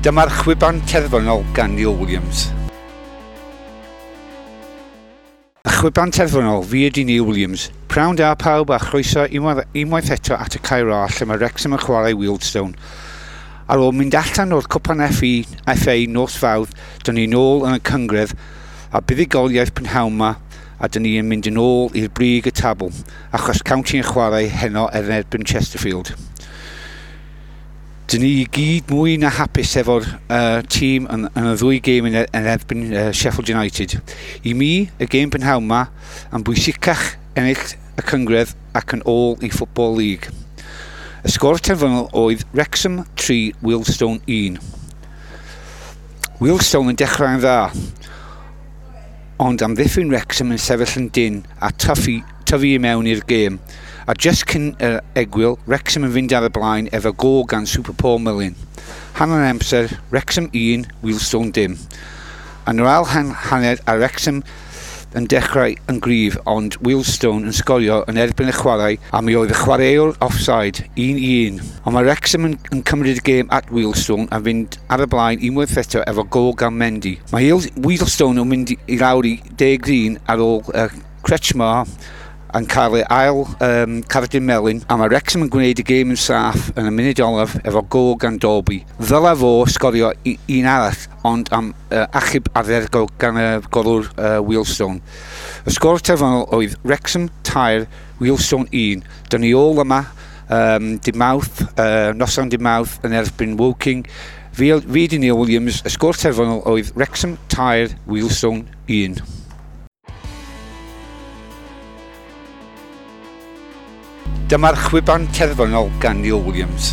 Dyma'r chwiban terfynol gan Neil Williams. Y chwiban terfynol, fi ydi Neil Williams. Prawn da pawb a chroeso unwaith eto at y Cae Ras lle mae Wrexham yn chwarae Wealdstone. Ar ôl mynd allan o'r cwpan FA nos Fawrth, dyn ni nôl yn y cynghrair a buddugoliaeth prynhawn 'ma a dyn ni yn mynd yn ôl i'r brig y tabl achos County yn chwarae heno er erbyn Chesterfield. Dyn ni i gyd mwy na hapus efo'r tîm yn y ddwy gêm yn erbyn Sheffield United. I mi, y gêm prynhawn 'ma yn bwysicach ennill y cynghrair ac yn ôl i Football League. Y sgôr terfynol oedd Wrexham 3, Wealdstone 1. Wealdstone yn dechrau'n dda, ond amddiffyn Wrexham yn sefyll yn dyn a tyfu i mewn i'r gêm. A just cyn yr egwyl, Wrexham yn fynd ar y blaen efo gôl gan Super Paul Mullin. Hanner amser, Wrexham 1, Wealdstone dim. Yn yr ail hanner a Wrexham yn dechrau yn gryf, ond Wealdstone yn sgorio yn erbyn y chwarae a mi oedd y chwaraewr offside 1-1. Ond mae Wrexham yn cymryd y gêm at Wealdstone a fynd ar y blaen unwaith eto efo gôl gan Mendy. Mae Wealdstone yn mynd i lawr i 10-1 ar ôl Kretschmar yn cael ei ail cardyn melyn, a mae Wrexham yn gwneud y gêm yn saff yn y munud olaf efo gôl gan Dolby. Ddylai fo sgorio un arall, ond am achub ardderchog gan y golwr Wealdstone. Y sgôr terfynol oedd Wrexham 3, Wealdstone 1. Dyn ni ôl yma dydd Mawrth, noson dydd Mawrth yn erbyn Woking. Fi di Neil Williams, y sgôr terfynol oedd Wrexham 3, Wealdstone 1. Dyma'r chwiban terfynol gan Neil Williams.